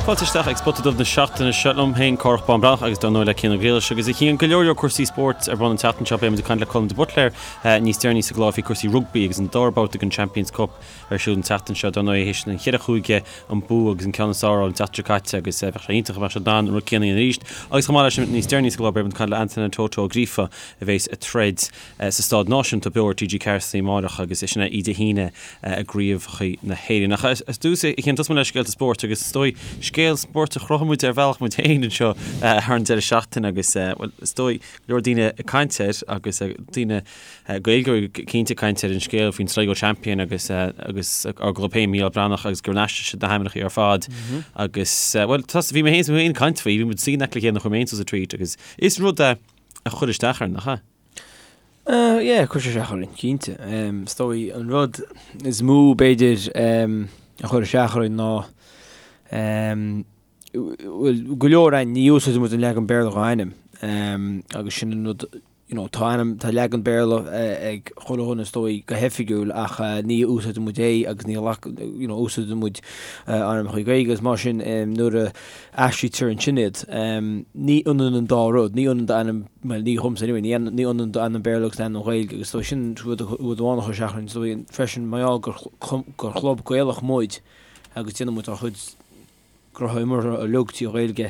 Fáilte isteach ag Spota Dubh na seachtaine seo liom féin, Cárthach Bán Breathnach agus dar ndóigh le Cian Ó Griallais agus a Chian, go leor leor cúrsaí spóirt ar bun an tseachtain seo. Beidh muid ag caint le Colm de Buitléir níos deireanaí sa gclár faoi cúrsaí rugbaí agus an dara babhta den Champions Cup ar siúl an tseachtain seo. Dar ndóigh théis an cheithre chúige an bua agus an ceann is fearr a fháil an tseachtain seo caite agus bheadh sé iontach dá mbeadh siad in ann an rud céanna a dhéanamh arís. Agus chomh maith leis sin níos deireanaí sa gclár beidh muid ag caint le Antonin Toto Ó Gríofa a bheas ag troid sa Staid Náisiúnta beo ar TG4 san amárach agus sin é Dé hAoine i gCraobhacha na hÉireann. Ach ar dtús, a Chian, tosóidh muid le scéalta spóirt agus is dóigh scéal spóirt a chruthaigh muid ar bhealach muid féin anseo thar an deireadh seachtaine agus, bhuel, is dóigh go leor daoine ag caint air agus daoine Gaeilgeoirí cinnte ag caint ar an scéal faoin Sligo Champion agus agus ár gclub féin Mícheál Breathnach agus gur aistrigh siad na hainmneacha ar fad agus, bhuel, bhí mé féin ag caint faoi, bhí muid suí in aice le chéile nuair a chuir mé féin suas an tweet agus is rud é a chuir isteach orainn, nach ea? Yeah, chuir sé isteach orainn, cinnte. Is dóigh an rud is mó b'fhéidir a chuir isteach orainn ná bhuel, go leor againn, ní úsáideann muid an leagan Béarla dhá ainm agus sin an rud, you know, tá ainm, tá leagan Béarla ag chuile dhuine is dóigh go hoifigiúil ach ní úsáideann muid é agus ní ghlac, you know, úsáideann muid ainmneacha Gaeilge agus mar sin nuair a aistrítear ansin iad. Ní ionann an dá rud, ní ionann d'ainm, bhuel ní dhomsa anyway, ní ionann d'ainm Béarla agus d'ainm Ghaeilge agus so sin rud amháin a chuir isteach orainn. So freisin mar gheall gur gur chlub Gaelach muid agus déanann muid ár chuid gnóthaí imeartha uilig trí Ghaeilge,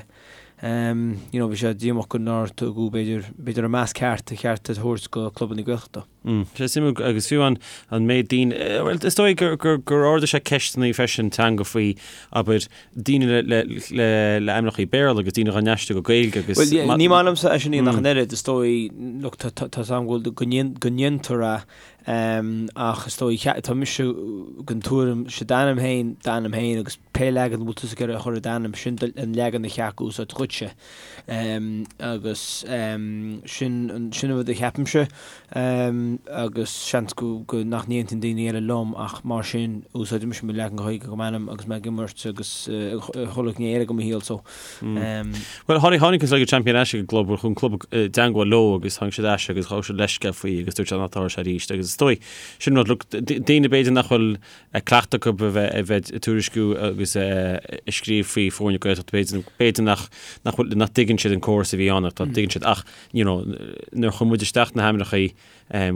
you know bhí sé díomách go nár tugadh b'fhéidir b'fhéidir an meas ceart a cheart a thabhairt go clubanna Gaeltachta. Sé suimiúil agus fiú an an méid daoine, bhuel is dóigh gur gur gur ardaigh sé ceisteanna freisin teanga faoi abair daoine le le le le ainmneacha Béarla agus daoine dhá n-aistriú go Gaeilge agus Bhuel yeah, ní maith liomsa é sin ach an oiread is dóigh look tá tá tá am go go ndéan go ndéantar é ach is dóigh tá mise den tuairim sé d'ainm féin d'ainm féin agus pé leagan a bhfuil tusa ag iarraidh a chur ar d'ainm sin an leagan a cheart a úsáid dhuitse. Agus sin an rud a cheapaimse agus seans go nach n-aontaíonn daoine eile liom ach mar sin úsáidimse mo leagan Gaeilge de m'ainm agus mé ag imirt agus chuile ghné eile de mo shaol so. Bhuel tháinig tháinig an Sligo Champion ar ais ag an gclub, chuaigh an club i dteangmháil leo agus tháinig siad ar ais agus ghabh siad leithscéal faoi agus dúirt siad nach dtarlódh sé arís agus is dóigh sin rud look daoine b'fhéidir nach bhfuil cleachtadh acu a bheith a bheith ag tuairisciú agus ag scríobh faoi foirne Gaeltachta b'fhéidir b'fhéidir nach nach bhfuil nach dtuigeann siad an córas a bhí ann ach tá tuigeann siad ach you know nuair a chuir muid isteach na hainmneacha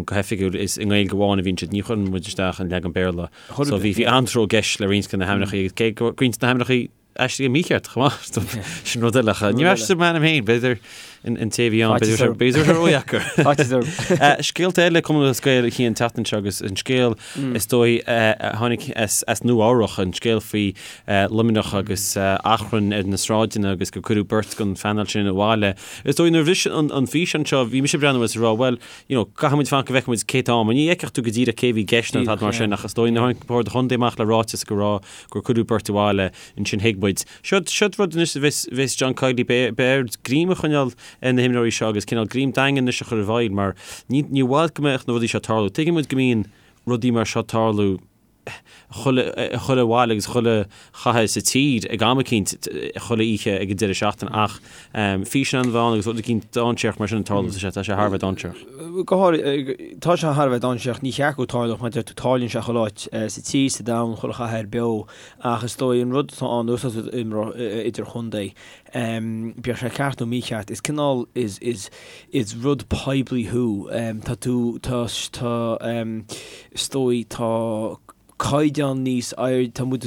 go hoifigiúil is i nGaeilge amháin a bhíonn siad ní chuireann muid isteach an leagan Béarla so bhí bhí an-tró i gceist le roinnt de na hainmneacha agus cé go roinnt de na hainmneacha aistrithe mícheart chomh maith. Sin rud eile. Níor aistrigh m'ainm féin, b'fhéidir an té a bhí ann, b'fhéidir b'fhéidir ródheacair. Scéalta eile Cumann Lúthchleas Gael a Chian an tseachtain seo agus an scéal is dóigh a tháinig as Nua Eabhrach, an scéal faoi Luimneach agus achrann ar na sráideanna agus gur cuireadh beirt den phainéal sin abhaile. Is dóigh nuair a bhris an físeán seo bhí mise ag breathnú agus ag rá bhuel, you know, caithfidh muid fanacht go bhfeicfidh muid cé atá ann. Ní fheicfeadh tú go díreach cé a bhí i gceist nó tada mar sin ach is dóigh nuair a tháinig Bord an Chontae amach le ráiteas go raibh gur cuireadh beirt abhaile, ansin thuig muid. Seod, seod rud anois a bheas, bheas John Kiely, beidh, beidh air greim a choinneáil ar na himreoirí seo agus cineál greim daingean anois a chur i bhfeidhm mar ní, ní bhfad go mbeadh na rudaí seo ag tarlú. Tuigeann muid go mbíonn rudaí mar seo ag tarlú chuile, chuile bhaile agus chuile chathair sa tír ag am eicínt, chuile oíche ag an deireadh seachtaine ach físeán a bheith ann agus rud eicínt dainséarach mar sin ag tarlú, tá sé, tá sé thar a bheith dainséarach. Go háirithe, tá sé thar a bheith dainséarach, ní cheart go dtarlódh, mar a deir tú, tarlaíonn sé chuile áit sa tír, sa domhan, chuile chathair beo, ach is dóigh an rud atá ann nuair atá tú ag imirt idirchontae, bíodh sé ceart nó mícheart, is cineál, is, is, is rud poiblí thú, tá tú, tá, tá, is dóigh, tá caighdeán níos airde, tá muid,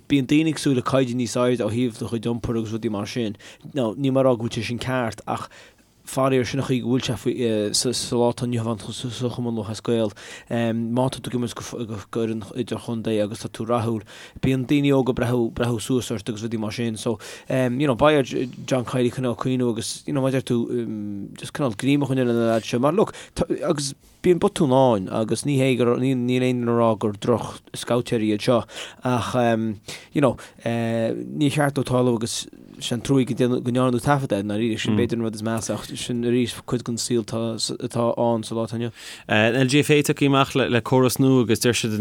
bíonn daoine ag súil le caighdeán níos airde ó thaobh do chuid iompair agus rudaí mar sin. Now, níl mé ag rá go bhfuil sé sin ceart ach Faraor, sin an chaoi go bhfuil sé faoi sa lá atá inniu ann sa Chumann Lúthchleas Gael. Má tá tú ag imirt go fhoireann idirchontae agus tá tú rathúil, bíonn daoine óga ag breathnú suas ort agus rudaí mar sin. So, you know, beidh ar John Kiely cineál cuimhniú agus, you know, mar a deir tú, just cineál greim a choinneáil ar na lads seo. Mar look, agus bíonn botúin ann agus ní hé gur, níl aon duine ag rá gur droch-scabhtéirí iad seo ach, you know, níor cheart dó tarlú agus. Sin truaí go ndearnadh taifead air, ndáiríre, sin b'fhéidir an rud is measa ach sin arís cuid den saol atá ann sa lá atá inniu. An LGFA tagtha amach le córas nua agus deir siad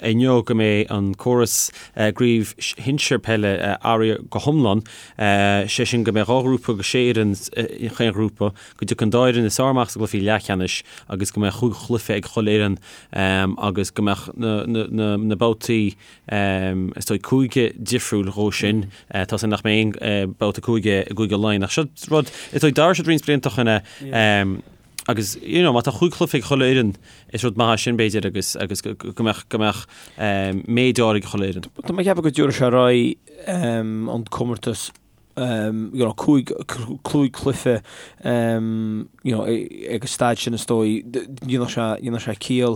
inniu go mbeidh an córas i gcraobh shinsir peile athraithe go hiomlán, sé sin go mbeidh 2 ghrúpa de 6 fhoireann in chaon ghrúpa, go dtiocfaidh an dá fhoireann is fearr amach sa gcluichí leathcheannais agus go mbeidh chúig chluiche ag chuile fhoireann agus go mbeadh na babhtaí Is dóigh cúige difriúil dhó sin. Tá a fhios agam nach mbeidh aon babhta cúige i gCúige Laighean ach seo rud, is dóigh d'athraigh siad roinnt blianta ó shin é agus you know má tá chúig chluiche ag chuile fhoireann is rud maith é sin b'fhéidir agus agus go mbeadh go mbeadh méid áirithe ag chuile fhoireann. Tá mé ag ceapadh go dtabharfaidh sé ar aghaidh an comórtas you know, cúig, cúig cluiche you know, ag an staid sin is dóigh, dhéanfadh sé, dhéanfadh sé ciall,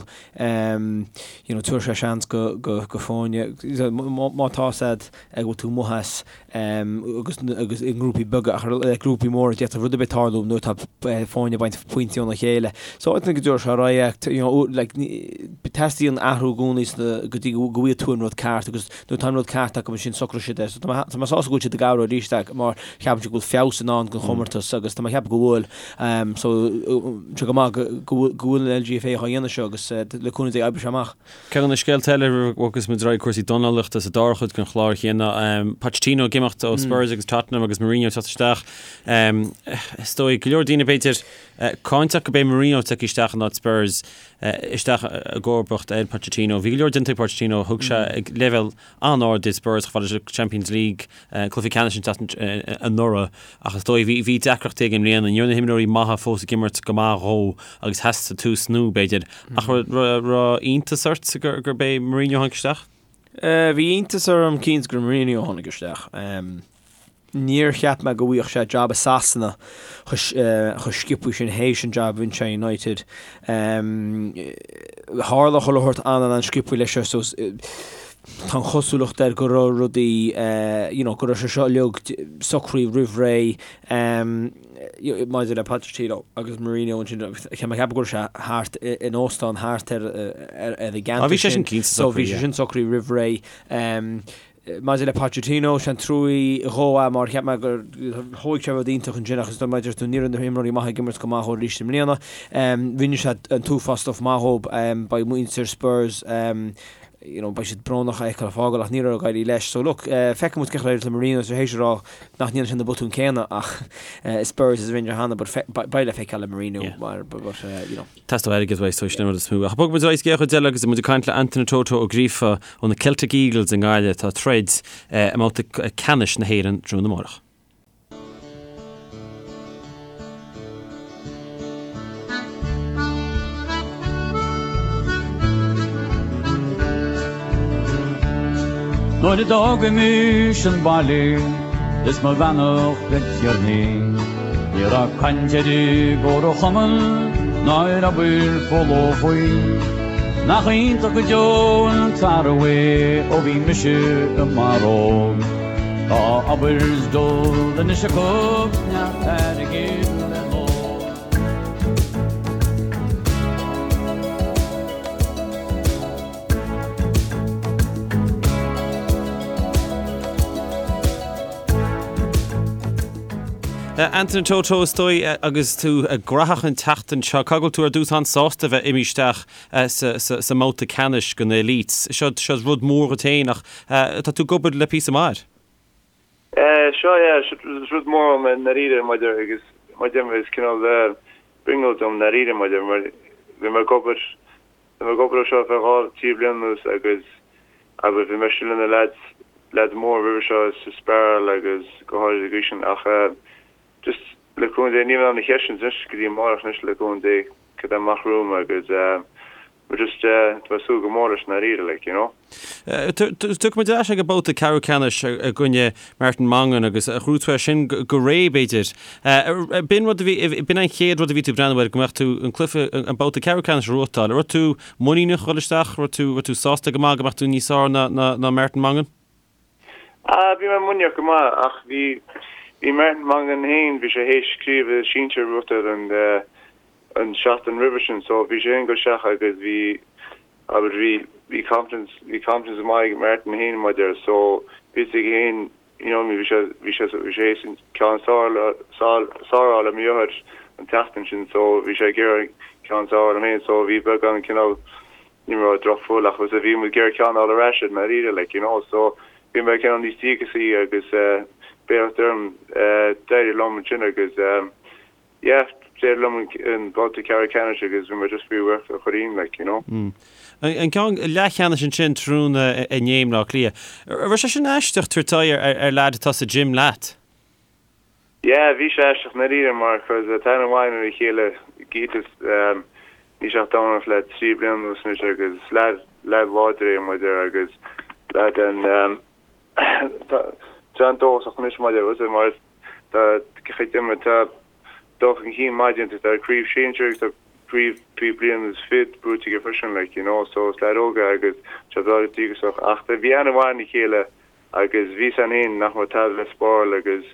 you know, tabharfaidh sé seans go, go, go foirne, má tá a fhios agat go bhfuil tú amuigh as agus, agus i ngrúpaí beaga ach le grúpaí móra d'fhéadfadh rud ar bith tarlú nuair atá foirne ag baint pointí óna chéile. So I think go dtabharfaidh sé ar aghaidh, you know, like, teastaíonn athrú i gcónaí go dtí go bhfaighidh tú an rud ceart agus Nuair atá an rud ceart acu ansin socróidh siad é. So tá mé tá mé sásta go bhfuil siad ag athrú arís é mar ceapaim go bhfuil feabhas i ndán don chomórtas agus tá mé ag ceapadh go bhfuil. So tá go maith go go bhfuil go bhfuil an LGFA á dhéanamh seo agus le cúnamh Dé oibreoidh sé amach. Ceann de na scéalta eile agus muid ag cúrsaí dornálaíochta sa dara chuid den chlár chéanna, Pochettino ag imeacht ó Spurs agus Tottenham agus Mourinho ag teacht isteach. Is dóigh go leor daoine b'fhéidir cáinteach go b'é Mourinho tagtha isteach in áit Spurs. isteach i gcomharbacht ar Pochettino. Bhí go leor déanta ag Pochettino, thug sé ag leibhéal an-ard iad Spurs chomh fada leis an Champions League, cluiche ceannais an tseachtain anuraidh ach is dóigh bhí bhí deacrachtaí aige i mbliana. Ní raibh na himreoirí maithe fós ag imirt go maith dhó agus theastaigh tús nua b'fhéidir. Ach raibh iontas ort gur gurb é Mourinho a tháinig isteach? Bhí iontas orm cinnte gur Mourinho a tháinig isteach. Níor cheap mé go bhfaigheadh sé jab i Sasana chomh sciobtha sin théis an jab a bhain sé United. Tharla chuile shórt an-an-sciobtha leis seo so tá an chosúlacht air go raibh rudaí you know go raibh sé seo uilig socraithe roimh ré maidir le Pochettino agus Mourinho ansin tá mé ag ceapadh go raibh sé thart in óstán thart ar ar an gceantar sin so bhí sé sin socraithe roimh ré. Maidir le Pochettino, sé an truaí dhó é mar cheap mé gur thóig sé rud iontach ansin ach is dóigh maidir tú ní raibh na himreoirí maithe ag imirt go maith dhó arís i mbliana. Rinne sé an t-uafás stuff maith dhób. Beidh muintir Spurs you know beidh siad brónach é a fheiceáil ag fágáil ach ní raibh ag éirí leis. So look, feicfidh muid cén chaoi ar éirigh le Mourinho tar éis a rá nach ndéanfaidh sé na botúin céanna ach i Spurs is a rinne sé cheana but beidh le feiceáil le Mourinho mar but you know. Teastóidh airgead uaidh so sin an rud is mó. Ach bogfaidh muid ar aghaidh sa gcéad chuid eile agus muid ag caint le Antaine Toto Ó Gríofa ó na Celtic Eagles i nGaillimh atá ag troid i mbabhta ceannais na hÉireann tráthnóna amárach. Nuair a d'fhágaimis an baile is mo bheannacht le Tiarnaí Ní raibh caint ar an gcomharchumann ná ar obair folamh faoi. Nach iontach go deo an t-athrú é ó bhí mise mar óg. Tá obair is dól anois acu 's neart airgid le n-ól. Antaine Toto, is dóigh, agus tú gnóthach an tseachtain seo, caithfidh go bhfuil tú ar dtús an-sásta a bheith imithe isteach sa mbabhta ceannais den Elites. Seo rud mór dhuit féin ach tá tú ag obair le píosa maith air. Seo, yeah, is rud mór dom i ndáiríre maidir agus mar déarfá is cineál brionglóid dom i ndáiríre maidir mar bhí mé ag obair Bhí mé ag obair air seo ar feadh 2, 3 bliana anuas agus abair bhí mise le na leaids, leaids móra roimhe seo sa Spiral agus go háirid ag aois sin ach just le cúnamh Dé níl mé in ann na ceisteanna anois go dtí amárach anois le cúnamh Dé cad é amach romham agus but just tá mé ag súil go mór leis i ndáiríre like you know. Tiocfaidh muid ar ais ag an babhta ceathrú ceannais i gcoinne Martin Mongan agus ghnóthaigh tú é sin go réidh, b'fhéidir. B'in rud a bhí, b'in an chéad rud a bhí tú ag breathnú air, go mbeadh tú an cluiche, an babhta ceathrú ceannais a ghnóthachtáil. Raibh tú muiníneach a dhul isteach? Raibh tú, raibh tú sásta go maith go mbeadh tú níos fearr ná, ná, ná Martin Mongan? Ah, bhí mé muiníneach go maith ach bhí, bhí Martin Mongan féin, bhí sé théis craobh sinsir a bhuachtáil an, an seachtain roimhe sin so bhí sé féin ag dul isteach agus bhí, abair bhí, bhí confidence, bhí confidence maith ag Martin féin maidir so bhí a fhios aige féin. You know, bhí sé, bhí sé, bhí sé théis an ceann is fearr a fháil ar mo dheartháir an tseachtain sin so bhí sé ag iarraidh an ceann is fearr a fháil orm féin so bhí beagán cineál, ní raibh drochfhuil ach was bhí muid ag iarraidh ceann a fháil ar ais air i ndáiríre like, you know, so bhí mé cineál níos díogasaí agus eh, beacht orm eh, d'éirigh liom ansin agus eh, Yeah, d'éirigh liom an babhta ceathrú ceannais agus bhí mé just fíorbhuíoch do Chuirrín, like, you know. An ceann leathcheannais ansin tráthnóna inné i mBleá Cliath. An raibh sé sin aisteach tabhairt aghaidh ar leaid atá sa gym leat? Yeah, bhí sé aisteach i ndáiríre mar cos tá aithne mhaith againn ar a chéile, Gytis, níl sé ach ag dornálaíocht le 3 bliana anuas anois agus is leaid, leaid láidir é maidir agus leaid an, tá sé an-dóchasach anois maidir, was it, mar Tá chuid de tá dul chun cinn maith déanta, tá craobh sinsir agus tá craobh faoi bliain is fiche buaite aige freisin like you know so is leaid óg é agus tá breá díograiseach ach bhí aithne mhaith ar a chéile agus bhí a fhios againn féin nach raibh tada le spáráil agus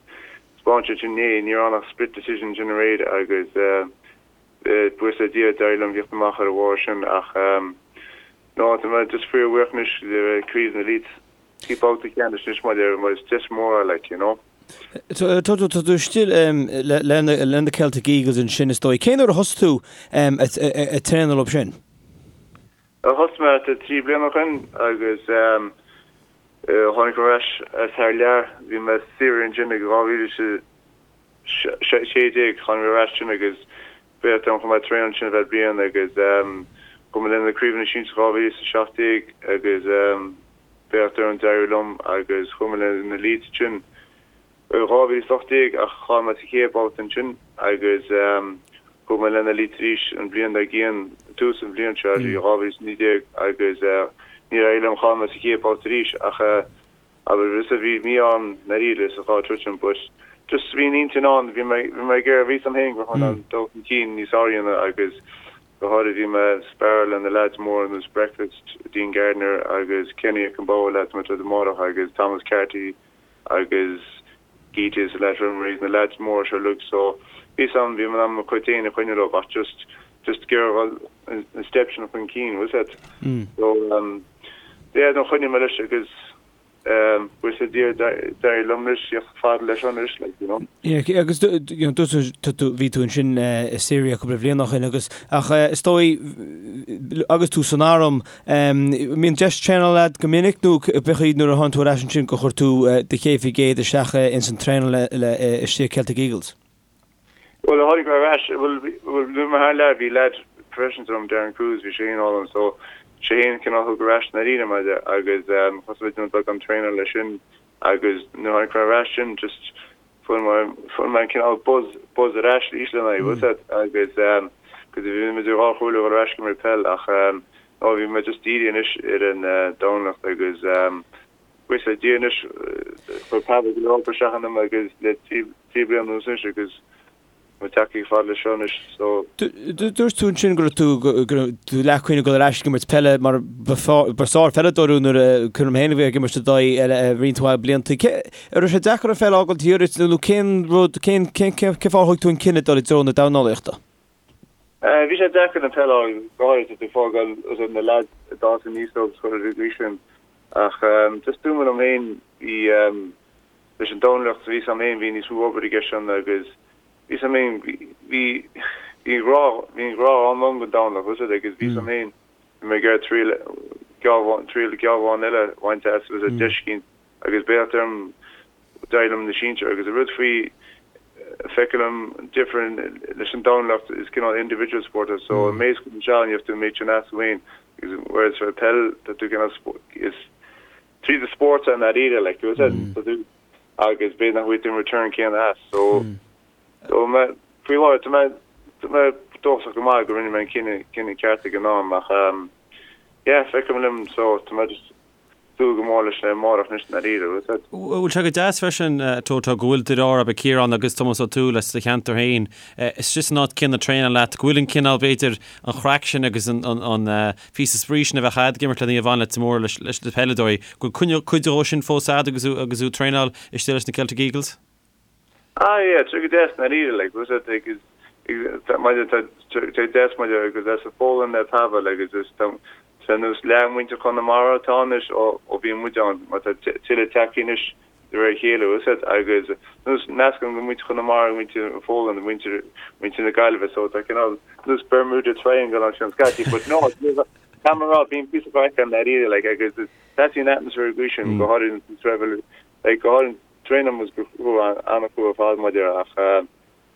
'spáin sé sin inné, ní raibh ann ach split decision sin aréir agus buíochas le Dia d'éirigh liom theacht amach ar a bharr sin ach no tá mé just fíorbhuíoch anois le craobh na Elites. Bhí babhta ceannais anois maidir mar is deis mór é like, you know. Tá tú istigh le na Celtic Eagles ansin is dóigh. Cén uair a thosaigh tú ag traenáil leo sin? Thosaigh mé 3 bliana ó shin agus tháinig mé ar ais as thar lear. Bhí mé saor ansin ag 2016, tháinig mé ar ais ansin agus bheadh dom chomh maith traenáil ansin ar feadh bliain agus chuaigh mé le na craobhanna sinsir 2017 agus Beacht orm d'éirigh liom agus chuaigh mé le na Elites ansin i 2018 ach chaill mé sa chéad babhta ansin agus chuaigh mé le na Elites arís an bhliain dár gcionn, tús an bhliain seo, 2019 agus níor éirigh liom, chaill mé sa chéad babhta arís ach abair is bhí mí-ádh orm i ndáiríre sa dhá troid sin but just bhí an intinn ann, bhí mé bhí mé ag iarraidh, bhí a fhios agam féin go raibh mé in ann dul chun cinn níos fearr a dhéanamh agus Go háirid bhí mé ag sparáil le na leaids móra ar nós Breakfast, Dean Gardiner agus Kenny Okemgboa leaids mé troid amárach agus Thomas Carty agus Gytis leaids Remorys na leaids móra seo uilig so bhí a fhios agam bhí mé in ann mo chuid féin a choinneáil leo ach just just ag iarraidh dhul an step sin chun cinn bhfuil a fhios agat. So yeah no choinnigh mé leis agus Buíochas le Dia d'éirigh liom anois theacht fada leis anois, like, you know. Yeah, agus you know, dúirt tú, bhí tú ansin i Syria cúpla bliain ó shin agus ach is dóigh agus tú san arm, mbíonn deis traenáil agat go minic nó b'é nuair a tháinig tú ar ais ansin gur chuir tú do 100% isteach ins an traenáil le istigh Celtic Eagles? Bhuel, tháinig mé ar ais, bhuel, bhuel, nuair mar thar lear, bhí leaid professional agam, Darren Cruise, bhí sé féin álainn, so sé féin cineál thug ar ais i ndáiríre mé agus um, thosaigh mé ag déanamh beagán traenáil leis sin agus nuair tháinig mé ar ais sin, just fuair mé, fuair mé an cineál buzz, buzz ar ais arís lena aghaidh, bhfuil a fhios agat, agus um, cos bhí mé idir dhá chomhairle dhul ar ais go imirt peil ach um, no, bhí mé just dírithe anois ar an uh, dornálaíocht agus um, Buíochas le Dia anois, chuir Pavel go leor obair isteach ionam agus le 3 bliana anuas anois agus tá mé tagtha fada leis seo anois so. Dúirt tú ansin go raibh tú go raibh tú leathchuimhne ag dul ar ais ag imirt peile mar ba sár-pheileadóir thú nuair a cuimhin liom féin a bheith ag imirt i d'aghaidh roinnt mhaith blianta. Cé an raibh sé deacair an pheil a fhágáil thiar duit nó cén rud cén cén cén fáth a thug tú an cinneadh dul i dtreo na dornálaíochta? Bhí sé deacair an peil a fhágáil go háirithe tú ag fágáil na leaids a d'fhás aníos leo agus chuile rud faoi sin. Ach just dúirt mé liom féin, bhí, leis an dornálaíocht, bhí a fhios agam féin, bhí níos mó obair i gceist ann agus bhí a fhios agam féin, bhí, bhí an grá, bhí an grá ann dom don dornálaíocht, bhfuil a fhios agat, agus bhí a fhios agam féin, bhí mé ag iarraidh triail, triail geall amháin eile a bhaint as, bhfuil a fhios agat, deis éicint agus beacht orm, d'éirigh liom na sinsir agus an rud faoi feicim an difear leis an dornálaíocht is cineál individual sport é so an méid a chuireann isteach ann you have to méid sin as féin agus whereas for peil tá tú cineál is tríd an spórt i ndáiríre like you said tá tú agus b'fhéidir nach bhfuil tú an return céanna as so so mé faoi láthair tá mé tá mé dóchasach go maith go rinne mé an cinneadh cinneadh ceart ag an am ach um yeah feicim liom so tá mé just súil go mór leis amárach anois i ndáiríre, bhfuil a fhios agat. Bhfuil sé go deas freisin, Toto, go bhfuil deartháir agat Ciarán agus Tomás Ó Tuathail as do cheantar féin istigh san áit céanna traenáil leat, go bhfuil an cineál, b'fhéidir, an chraic sin agus an píosa spraoi sin a bheadh agat ag imirt le Naomh Anna Leitir Móir leis na peileadóirí, go bhfuil cuid dhó sin fós agat agus thú ag traenáil istigh leis na Celtic Eagles? Ah yeah, tá sé go deas i ndáiríre, like, bhfuil a fhios agat, agus maidir, tá sé go deas maidir agus as a foghlaim le Pavel agus is tá sé nós leath muintir Chonamara atá anois ó ó bhí muid ann, mar tá tuilleadh tagtha anois. de réir a chéile, bhfuil 'fhios a'd, agus nós meascán de mhuintir Chonamara, muintir an Phóland, muintir muintir na Gaillimhe, so tá cineál nós Bermuda Triangle ansin scaití, but no, tá mé a rá, bíonn píosa craic ann dáiríre, like, agus is teastaíonn atmaisféar agaibh sin, go háirithe an traibh, like, go háirithe traenáil muid go crua, an-chrua ar fad maidir ach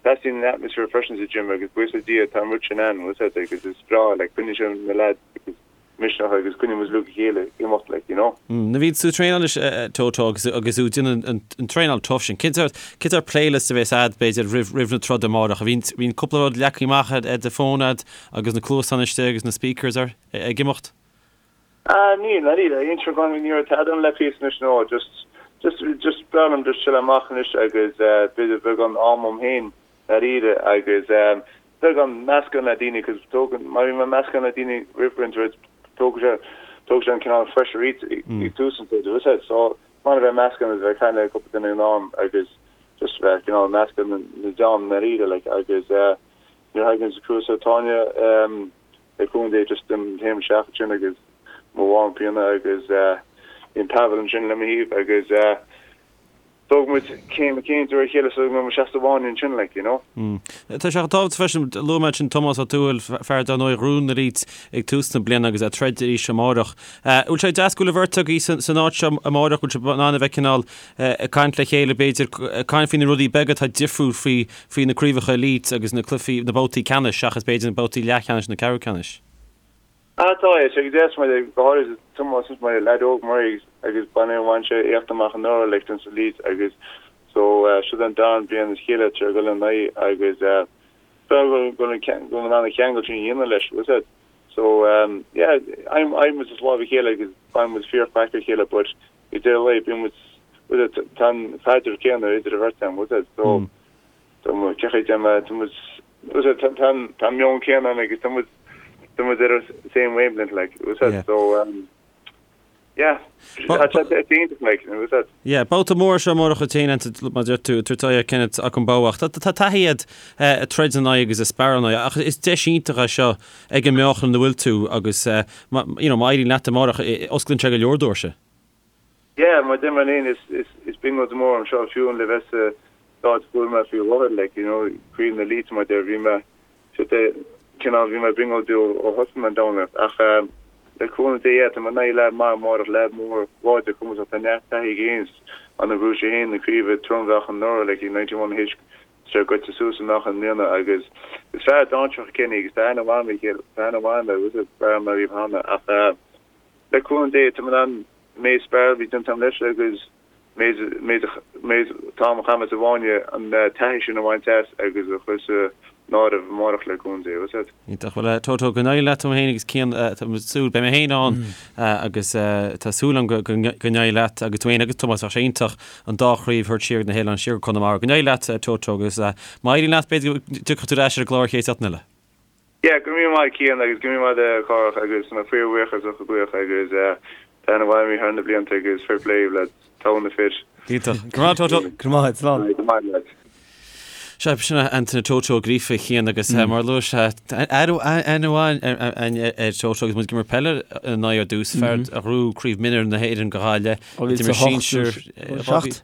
teastaíonn an atmaisféar freisin sa gym agus buíochas le Dia tá an rud sin ann, bhfuil 'fhios a'd, agus is breá, like, coinníonn sé na lads agus misneach agus coinníonn muid uilig a chéile ag imeacht, like, you know. Nuair a bhíonn tú ag traenáil leis Toto agus agus tú ag déanamh an an traenáil tough sin, cén sórt cén sórt playlist a bheas a'd b'fhéidir roimh roimh na troda amárach? A bhíonn bhíonn cúpla rud leagtha amach ar ar do fón a'd agus na cluasáin istigh agus na speakers ar ag imeacht? Ah níl, níl, aon gan ní raibh tada ann le píosa anois no, just just just breá liom just chill amach anois agus eh b'fhéidir beagán am dom féin dáiríre agus eh beagán meascán le daoine cos tógann má bhíonn mé meascán le daoine roimh roinnt rud tógann sé tógann sé an cineál pressure ag ag tús an troda bhfuil 'fhios a'd so maith a bheith meascán agus bheith ag caint le cúpla duine in am agus just bheith cineál meascán na na dream dáiríre like agus eh nuair a thagann sa cúrsa Táine em le cúnamh Dé just an taom isteach ansin agus mo warm-up a dhéanamh agus bíonn Pavel ansin le mo thaobh agus tógann muid céim céim de réir a chéile so go mbeidh muid seasta amháin ansin like you know. Tá sé tábhachtach freisin, luaigh mé ansin Tomás Ó Tuathail, fear dar ndóigh a ghnóthaigh na Elite ag tús na bliana agus ag troid arís amárach. Bhfuil sé deas go bhfuil an bheirt agaibh san áit seo amárach, bhfuil sibh in ann a bheith cineál ag caint le chéile b'fhéidir, ag caint faoi na rudaí beaga atá difriúil faoi faoi na craobhacha Elite agus na cluichí, na babhtaí ceannais seachas b'fhéidir na babhtaí leathcheannais nó ceathrú ceannais. Ah tá, tá sé go deas mar go háirid Tomás is mar leaid óg mar é agus baineadh bhain sé éacht amach anuraidh like don Elite agus so seo an darna bliain as a chéile tar ag dul in aghaidh agus go bhfuil go in ann an cheangal sin a dhéanamh leis, bhfuil 'fhios a'd. So yeah, I'm muid as lámh a chéile agus baineann muid fíor-chraic ar chéile but ag deireadh an lae bíonn muid bhfuil 'fhios a'd tá an caidreamh céanna idir an bheirt againn bhfuil 'fhios a'd so tá muid cé chaoi déanamh tá muid bhfuil 'fhios a'd tá tá tá an meon céanna ann agus tá muid tá muid ar an same wavelength like bhfuil 'fhios a'd so um, yeah tá sé iontach like bhfuil 'fhios a'd. Yeah, babhta mór seo amárach a téann mar a deir tú tabhairt aghaidh ar Kenneth Okungbowa ach tá tá taithí agat ag troid ina aghaidh agus ag sparráil ina aghaidh ach is deis iontach é seo ag an meáchan ina bhfuil tú agus you know má éiríonn leat amárach osclaíonn sé go leor doirse. Yeah, mar deir mé féin is is is brionglóid mór dom seo fiú le bheith sa áit a bhfuil mé faoi láthair like you know craobh na Elite mar deir bhí mé siad é cineál bhí mé ag brionglóid ó ó thosaigh mé an dornálaíocht ach le cúnamh Dé yeah tá mé in aghaidh leaid maith amárach leaid mór láidir cumasach tá neart taithí aige féin an a bhuaigh sé féin na craoibhe trom-mheáchan anuraidh like i 91 H sé goite suas i meáchan i mbliana agus is fear dainséarach é Kenny agus tá aithne mhaith agam air, tá aithne mhaith agam air, is fear mé riamh cheana ach le cúnamh Dé tá mé in ann méid spar a bhí déanta agam leis agus méid méid méid t-am a chaith mé sa bhfáinne an taithí sin a bhaint as agus a chur san áireamh amárach le cúnamh Dé, bhfuil 'fhios a'd. Iontach. Bhuel, Toto, go n-éirí leat tú féin agus Cian, tá mé ag súil, beidh mé féin ann agus tá súil agam go n-éirí leat agus tú féin agus Tomás, bheadh sé iontach an dá chraobh a thabhairt siar ag na hoileáin, siar go Conamara. Go n-éirí leat, Toto, agus má éiríonn leat, b'fhéidir go dtiocfaidh tú ar ais ar an gclár chéad seachtain eile. Yeah, go raibh míle maith Cian agus go raibh míle maith a Chárthach agus tá mé fíorbhuíoch as ucht an glaoch agus tá aithne mhaith agam thar na blianta agus fair play lads, togha na fir. Iontach. Go raibh maith Toto. Go raibh maith, slán. Go raibh maith lads. Sea, sin é Antaine Toto Ó Gríofa a Chian agus mar a luaigh sé, aithne mhaith ar Toto agus muid ag imirt peile ina aghaidh ar dtús, fear a ghnóthaigh Craobh Mionúir na hÉireann do Ghaillimh. D'imir sinsir 2007.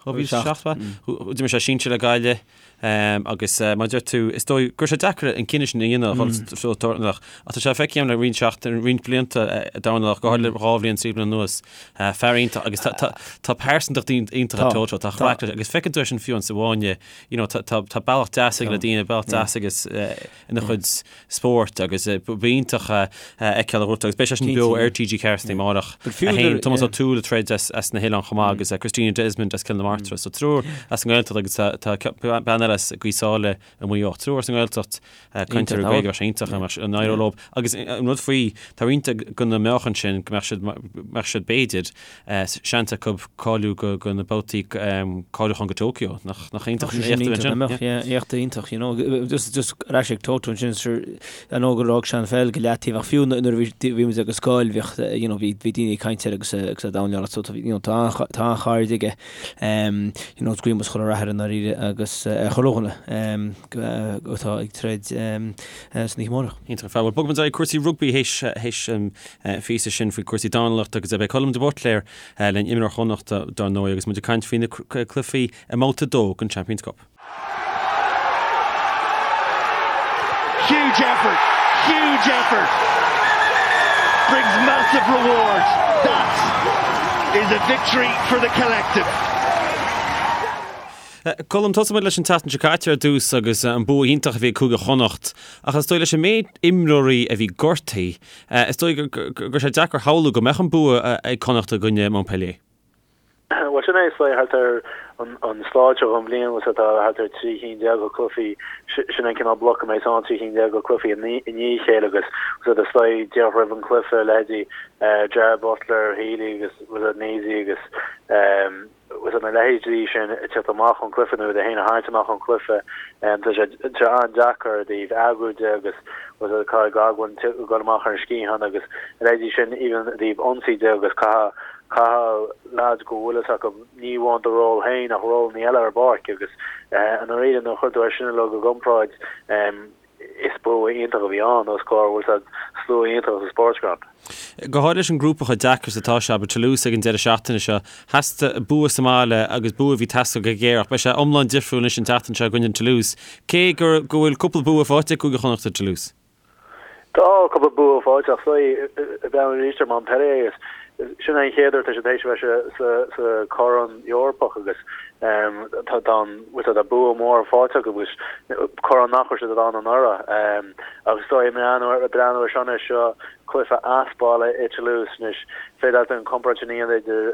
2007, D'imir sé sinsir le Gaillimh agus mar a deir tú, is dóigh go raibh sé deacair an cinneadh sin a dhéanamh dhul dornálaíocht. Ach tá sé feicthe agam le roinnt seachtain, roinnt blianta ag dornálaíocht, go háirithe le dhá bhliain, trí bliana anuas. Fear iontach agus tá pearsantacht iontach ag Toto, tá craic leis agus feiceann tú é sin fiú sa bhfáinne, you know, tá bealach deas aige le daoine, bealach deas aige ina chuid spóirt agus ba iontach a fheiceáil a ghort agus beidh sé sin beo ar TG4 san amárach. A haon, Tomás Ó Tuathail ag troid as na hOileáin chomh maith agus Christina Desmond as Cill na Martra. So triúr as an nGaeltacht agus tá bean eile as Gaoth Sáile i Maigh Eo. Triúr as an nGaeltacht cainteoirí Gaeilge, bheadh sé iontach dá mbeadh an éireodh leo. Agus an rud faoi, tá roinnt de na meáchain sin go mbeadh siad, mbeadh siad b'fhéidir, seans acu cáiliú go go na babhtaí cáiliúcháin go Tokyo. Nach nach iontach an éacht a bheadh ansin? Mbeadh, yeah, éacht iontach, you know. Just just ar ais ag Toto ansin, sure, I know gur fhág sé an pheil go leataobh ach fiú nuair a bhí bhí muid ag an scoil bhíodh, you know, bhí bhí daoine ag caint air agus agus é ag dornálaíocht so you know, tá an tá an-chairde aige. You know, guím chuile rath air i ndáiríre agus ar chuile dhuine atá ag troid san oíche amárach. Iontach ar fad. Bhuel, bogfaidh muid ar aghaidh cúrsaí rugbaí théis théis an phíosa sin faoi cúrsaí dornálaíochta agus beidh Colm de Buitléar linn, imreoir Chonnachta dar ndóigh agus muid ag caint faoi na cluichí i mbabhta 2 den Champions Cup. Huge effort, huge effort brings massive reward. That is a victory for the collective. Colm, tosóidh muid leis an tseachtain seo caite ar dtús agus an bua iontach a bhí ag Cúige Chonnacht ach is dóigh leis an méid imreoirí a bhí gortaithe, is dóigh go raibh sé deacair a shamhlú go mbeadh an bua ag Connacht i gcoinne Montpellier. Bhuel, sin é, is dóigh, thart ar an stáid seo den bhliain, bhuel, tá thart ar 13 cinn de chluichí, sin an cineál bloc a mbeidh ann, 13 cinn de chluichí i ndiaidh a chéile agus, bhuel, is dóigh, díreach roimh an chluiche, leithéidí Gerard Butler, Healy agus, bhuel, Sneesy agus, bhuel, na leithéidí sin ag teacht amach ón chluiche nó iad féin a tharraingt amach ón chluiche, tá sé an-deacair i dtaobh eagrú de agus, bhuel, Kyle Godwin ag dul amach ar an sciathán agus a leithéidí sin, even i dtaobh ionsaí de agus caithfidh Caithfidh leaids go bhfuil fhios acu ní amháin do ról féin ach rólanna eile ar an bpáirc agus i ndáiríre nuair a chuir tú é sin uilig i gcomparáid is bua iontach a bhí ann os comhair bhfuil fhios a'd slua iontach sa Sportsground. Go háirithe leis an ngrúpa chomh deacair is atá sé, abair Toulouse ag an deireadh seachtaine seo, theastaigh bua sa mbaile agus bua a bhí ag teastáil go géar ach beidh sé iomlán difriúil anois an tseachtain seo i gcoinne Toulouse, cé go go bhfuil cúpla bua faighte ag Cúige Chonnacht ar Toulouse. Tá cúpla bua faighte ach is dóigh ag breathnú arís ar Montpellier agus sin é an chéad uair tá siad tar éis a bheith sa sa Chorn Eorpach agus tá tá an bhfuil tá bua mór faighte acu agus corn nach raibh siad ann anuraidh agus is dóigh ag breathnú ag breathnú ar seo anois seo cluiche as baile i Toulouse anois féidir leat an comparáid sin a dhéanamh idir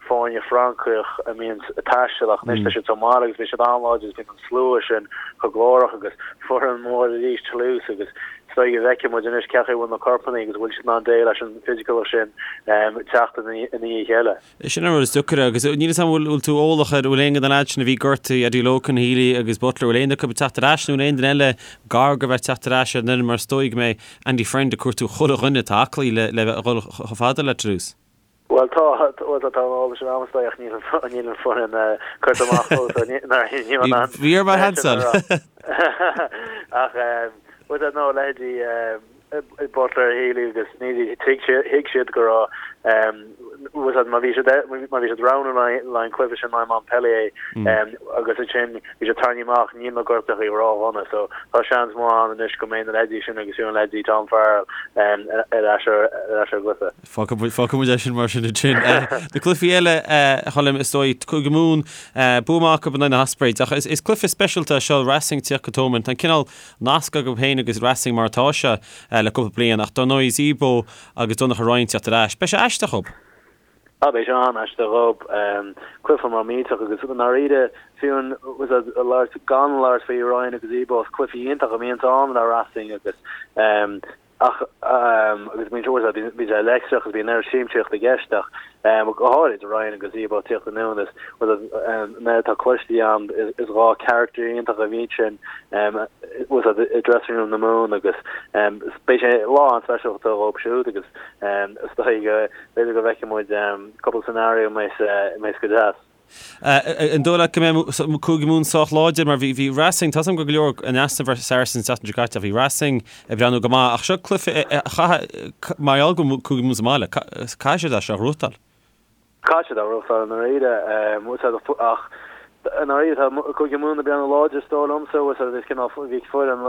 foirne Francach a mbíonn ag taisteal ach anois tá siad sa mbaile agus bíonn siad an-láidir agus bíonn an slua sin chomh glórach agus foireann mór arís Toulouse agus is dóigh go bhfeicfidh muid anois cén chaoi a bhfuil na corpanna agus bhfuil siad in ann déileáil leis an bhfisiciúlacht sin teacht i ndiaidh a chéile. Sin an rud is deacair agus níl 'fhios a'm bhfuil tú eolach ar bhfuil aon de na leaids sin a bhí gortaithe, Eddie Logan, Healy agus Butler, bhfuil aon acu ag teacht ar ais nó aon duine eile gar go bheith teacht ar ais ar an fhoireann mar is dóigh go mbeidh Andy Friend ag cuartú chuile dhuine atá aclaí le le bheith ag dul chomh fada le Toulouse. Bhuel tá, bhuel tá an eolas sin agam is dóigh ach níl an, níl an foireann curtha amach fós so ní, ní in ann. Bhí ar mar Hansel. Ach bhuel no leithéidí Butler, Healy agus Sneesy thuig siad, thuig siad go raibh bhuel má bhí siad, má bhí siad roghnú le haghaidh an cluiche sin le Montpellier agus ansin bhí siad tarraingthe amach níl na gortuithe ródhona so tá seans maith ann anois go mbeidh na leithéidí sin agus fiú an leithéidí Tom Farrell ar ais ar ais ar an gcluiche. Fágfaidh muid é sin mar sin ansin. Na cluichí eile, a Choilm, is dóigh, Cúige Mumhan, bua maith acu in aghaidh na hOspreys. Ach is cluiche speisialta é seo, Racing ag tíocht go Thomond. Tá an cineál nasc agaibh féin agus Racing mar atá sé le cúpla bliain. Ach dar ndóigh, Zebo agus Donnacha Ryan ag teacht ar ais. Beidh sé aisteach dhób. Ah, beidh sé an-aisteach dhób. Cluiche mór millteach agus i ndáiríre, fiú an, labhairt, gan labhairt faoi Ryan agus Zebo, is cluichí iontach a bhíonns ann le Racing agus Ach, agus bíonn sé, bíonn sé leictreach agus bíonn an oiread siamsaíocht i gceist ach go háirid Ryan agus Zebo ag tíocht anonn is an oiread atá cloiste agam is 2 character iontach a bhíonn sin i dressing room na Mumhan agus beidh sé lá an-speisialta dhóibh siúd agus is dóigh go b'fhéidir go bhfeicfidh muid cúpla scenario a mbeidh go deas. An dóigh leat go mbeidh Cúige Mumhan sách láidir mar bhí Racing, tá 's agam go leor in easnamh ar Saracens an tseachtain seo caite ach bhí Racing ag breathnú go maith ach seo cluiche a chaithfidh, mar gheall go bhfuil Cúige Mumhan sa mbaile, caithfidh siad é seo a ghnóthachtáil. Caithfidh siad é a ghnóthachtáil i ndáiríre ach i ndáiríre tá Cúige Mumhan ag breathnú láidir is dóigh liomsa, is cineál bhí foireann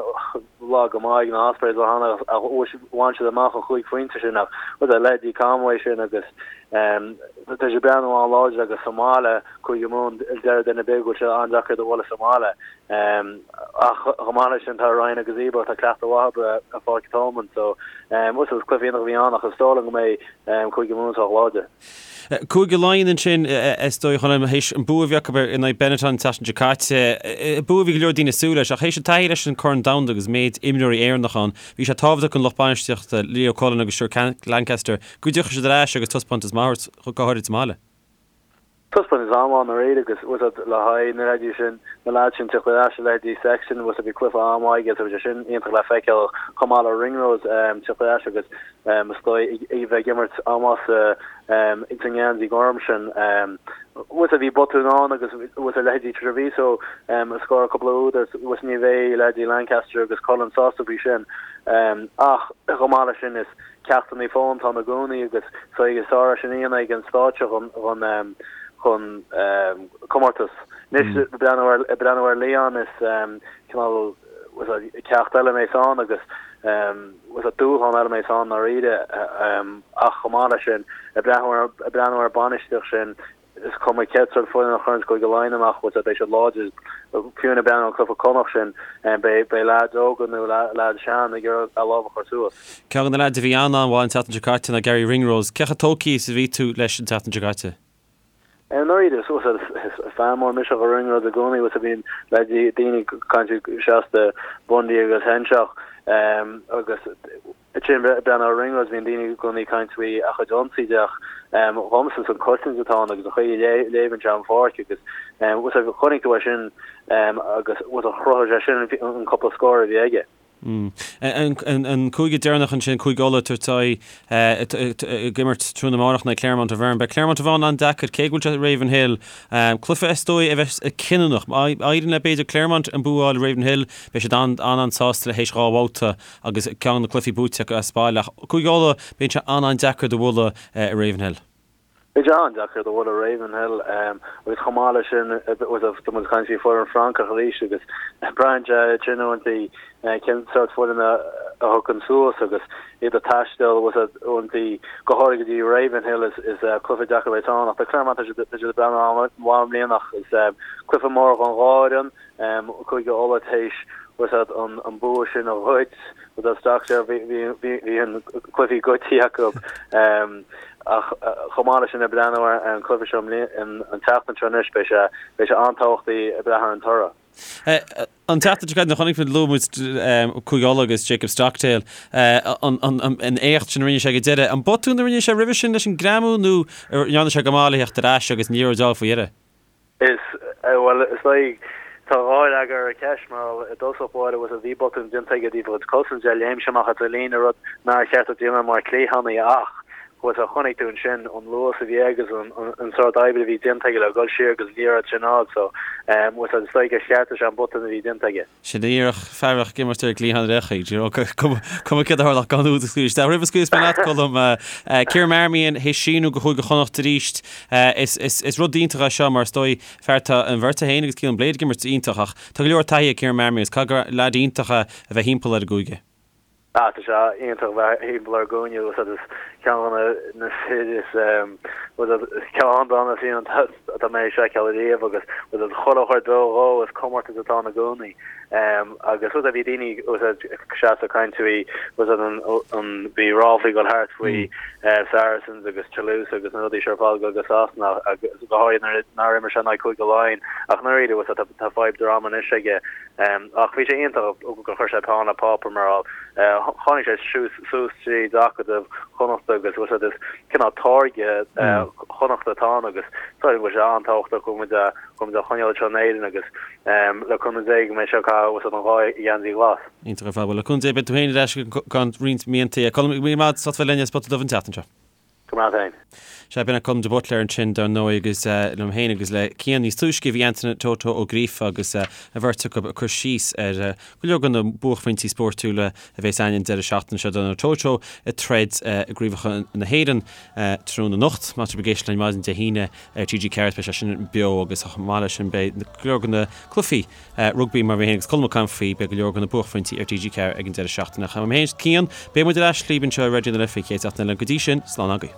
lag go maith ag na Ospreys ó cheana ach bhain siad amach an chúig phointe sin ach leithéidí Conway sin agus Tá siad ag breathnú an-láidir agus sa mbaile, Cúige Mumhan, deir duine ar bith go bhfuil sé an-deacair iad a bhualadh sa mbaile. Ach chomh maith leis sin tá Ryan agus Zebo, tá cleachtadh mhaith acu ar Pháirc Thomond so is cluiche iontach a bhí ann ach is dóigh liom go mbeidh Cúige Mumhan sách láidir. Cúige Laighean ansin, is dóigh, Choilm, théis an bua a bhí acu in aghaidh Benetton an tseachtain seo caite, bua a bhí go leor daoine ag súil leis ach théis an taithí leis an Corn Domhanda agus méid imreoirí Éireannach ann, bhí sé tábhachtach don lucht bainistíochta, Leo Cullen agus Stuart Lancaster, Go dtiocfaidh siad ar ais agus taispeántas maith a thabhairt, go háirid sa mbaile. Taispeántas an-mhaith i ndáiríre agus bhfuil fhios agat le haghaidh na leithéidí sin, na leaids sin teacht ar ais, a leithéidí Sexton, bhfuil fhios agat bhí cluiche an-mhaith aige so bhí sé sin iontach le feiceáil chomh maith le Ringrose teacht ar ais agus is dóigh a bheith ag imirt an-mhaith sa sa ngeansaí gorm sin. Bhfuil fhios agat bhí botún ann agus bhfuil fhios agat leithéidí Treviso a scóráil cúpla úd agus bhfuil fhios agat ní bheidh leithéidí Lancaster agus Cullen sásta faoi sin ach chomh maith leis sin is Ceachtanna fós atá ann i gcónaí agus is sárdheis ag an stáitse chun chun comórtas. Anois ag breathnú ar ag breathnú ar Lyon is cineál ceacht eile a bheas ann agus dúshlán eile a bheas ann i ndáiríre ach chomh maith leis sin ag breathnú ar ag breathnú ar bainistíocht sin Is cuma cén sórt foireann a chuireanns Cúige Laighean amach, bhfuil fhios agat, beidh siad láidir. Fiú ag breathnú ar an cluiche Connacht sin, beidh beidh leaids óga nó leaids sean ag iarraidh a lámh a chur suas. Ceann de na leaids a bhí an-an-mhaith an tseachtain seo caite ná Garry Ringrose. Cé chomh tógtha is a bhí tú leis an tseachtain seo caite? I ndáiríre, is is fan mór mise de Ringrose i gcónaí, bhfuil fhios agat bíonn leaids daoine ag caint seasta Bundee agus Henshaw agus Ansin ag breathnú ar Ringrose bíonn daoine i gcónaí ag caint faoi a chuid ionsaí de ach dhomsa is an cosaint atá ann agus an chaoi a léimeann sé an pháirc agus bhfuil fhios agat chonaic tú é sin agus bhfuil fhios agat chruthaigh sé sin an cúpla scór a bhí aige. An cúige deireanach ansin, Cúige Uladh, tabhairt aghaidh ag imirt tráthnóna amárach in aghaidh Clermont Auvergne. Beidh Clermont Auvergne an-deacair, cé go bhfuil sé i Ravenhill. Cluiche is dóigh a bheas cinniúnach. Má éiríonn le b'fhéidir Clermont an bua a fháil i Ravenhill, beidh siad an-an-sásta le théis dhá bhabhta agus ceann de na cluichí buaite acu as baile. Ach Cúige Uladh, bíonn sé an-an-deacair iad a bhualadh i Ravenhill. Beidh sé an-deacair iad a bhualadh i Ravenhill agus chomh maith leis sin, tá muid ag caint faoi foireann Francach arís agus braitheann sé sin uaireanta cén sórt foireann a thiocfaidh suas agus iad ag taisteal uaireanta go háirithe go dtí Ravenhill is cluiche deacair a bheas ann ach tá Clermont tá siad ag breathnú an-mhaith i mbliana ach is cluiche mór don dhá fhoireann. Cúige Uladh théis bhfuil fhios agat an bua sin a ghoid bhfuil fhios agat bhí an cluichí goidte acu ach chomh maith leis sin ag breathnú ar an cluiche seo an tseachtain seo anois beidh sé beidh sé an-tábhachtach ag breathnú ar an toradh. An tseachtain seo caite chonaic muid luaigh muid Cúige Uladh agus Jacob Stockdale an éacht sin a rinne sé ag an deireadh. An botún a rinne sé roimhe sin leis an greamú nó an ndearna sé go maith le theacht ar ais agus an liathróid a fháil faoi dheireadh? Is, bhuel, is dóigh, tá dhá fhreagra ar an cheist, mar i dtosach báire, bhfuil fhios agat, bhí botún déanta aige i dtaobh a chuid cosaint de, léim sé amach as a líne, rud nár cheart dó déanamh mar cliathánaí ach, bhfuil fhios agat, chonaic tú ansin an luas a bhí aige agus an sórt oibre a bhí déanta aige le dhul siar agus an liathróid sin a fháil, so, bhfuil fhios agat, is dóigh gur cheartaigh sé an botún a bhí déanta aige. Sin díreach fear a bheadh ag imirt ar an gcliathán ar aon chaoi, do you know, cuma céard a tharla ach gan úd a scaoileadh isteach. Roimh a scaoilfeas mé leat, Colm, Ciarán Marmion théis síniú go Chúige Chonnacht arís. Is rud iontach é seo mar is dóigh, fear tá an bheirt é féin agus Caolán Blade ag imirt iontach ach tá go leor taithí ag Ciarán Marmion agus caithfidh gur leaid iontach é a bheith thimpeall ar an gcúige. Ah, tá sé iontach a bheith thimpeall ar an gcúige bhfuil fhios agat is ceann de na fir is bhfuil fhios agat ceann de na fir atá mé ag seiceáil ariamh agus bhfuil fhios agat chuile chuid dó dhó is comórtas atá ann i gcónaí agus bhfuil fhios agat bhí daoine bhfuil fhios agat seasta ag caint faoi bhfuil fhios agat an an bhí ráflaí ag dul thart faoi Saracens agus Toulouse agus na rudaí seo ar fad ag dul go Sasana agus go háirithe nuair nár imir sé in aghaidh Cúige Laighean ach i ndáiríre bhfuil fhios agat tá fadhb droma anois aige Ach bhí sé iontach gur chuir sé peann le páipéar mar tháinig sé suas tríd acadamh Chonnachta agus bhfuil fhios agat is cineál táirge Chonnachta atá ann agus tá bhfuil sé an-tábhachtach go bhfuil muid go bhfuil muid á choinneáil anseo in Éirinn agus le cúnamh Dé go mbeidh sé ag caitheamh bhfuil fhios agat an dhá gheansaí ghlas. Iontach ar fad. Bhuel le cúnamh Dé beidh tú féin ar ais i gceann roinnt míontaí. Colm, go raibh míle maith agat as ucht bheith linn ar Spota Dubh an tseachtain seo. Go raibh maith agat féin. Sea, b'in é Colm de Buitléar ansin, dar ndóigh, agus liom féin agus le Cian níos túisce bhí Antaine Toto Ó Gríofa agus an bheirt acu ag cur síos ar go leor de na buaicphointí spórtúla a bheas againn an deireadh seachtaine seo. Dar ndóigh Toto ag troid i gCraobhacha na hÉireann tráthnóna anocht. Má tá sibh ag éisteacht linn maidin Dé hAoine ar TG4 beidh sé sin beo agus chomh maith leis sin beidh go leor de na cluichí rugbaí mar mé féin agus Colm ag caint faoi, beidh go leor de na buaicphointí ar TG4 ag an deireadh seachtaine. Ach uaim féin is Cian, beidh muid ar ais libh anseo ar Raidió na Life an chéad seachtain eile. Go dtí sin, slán agaibh.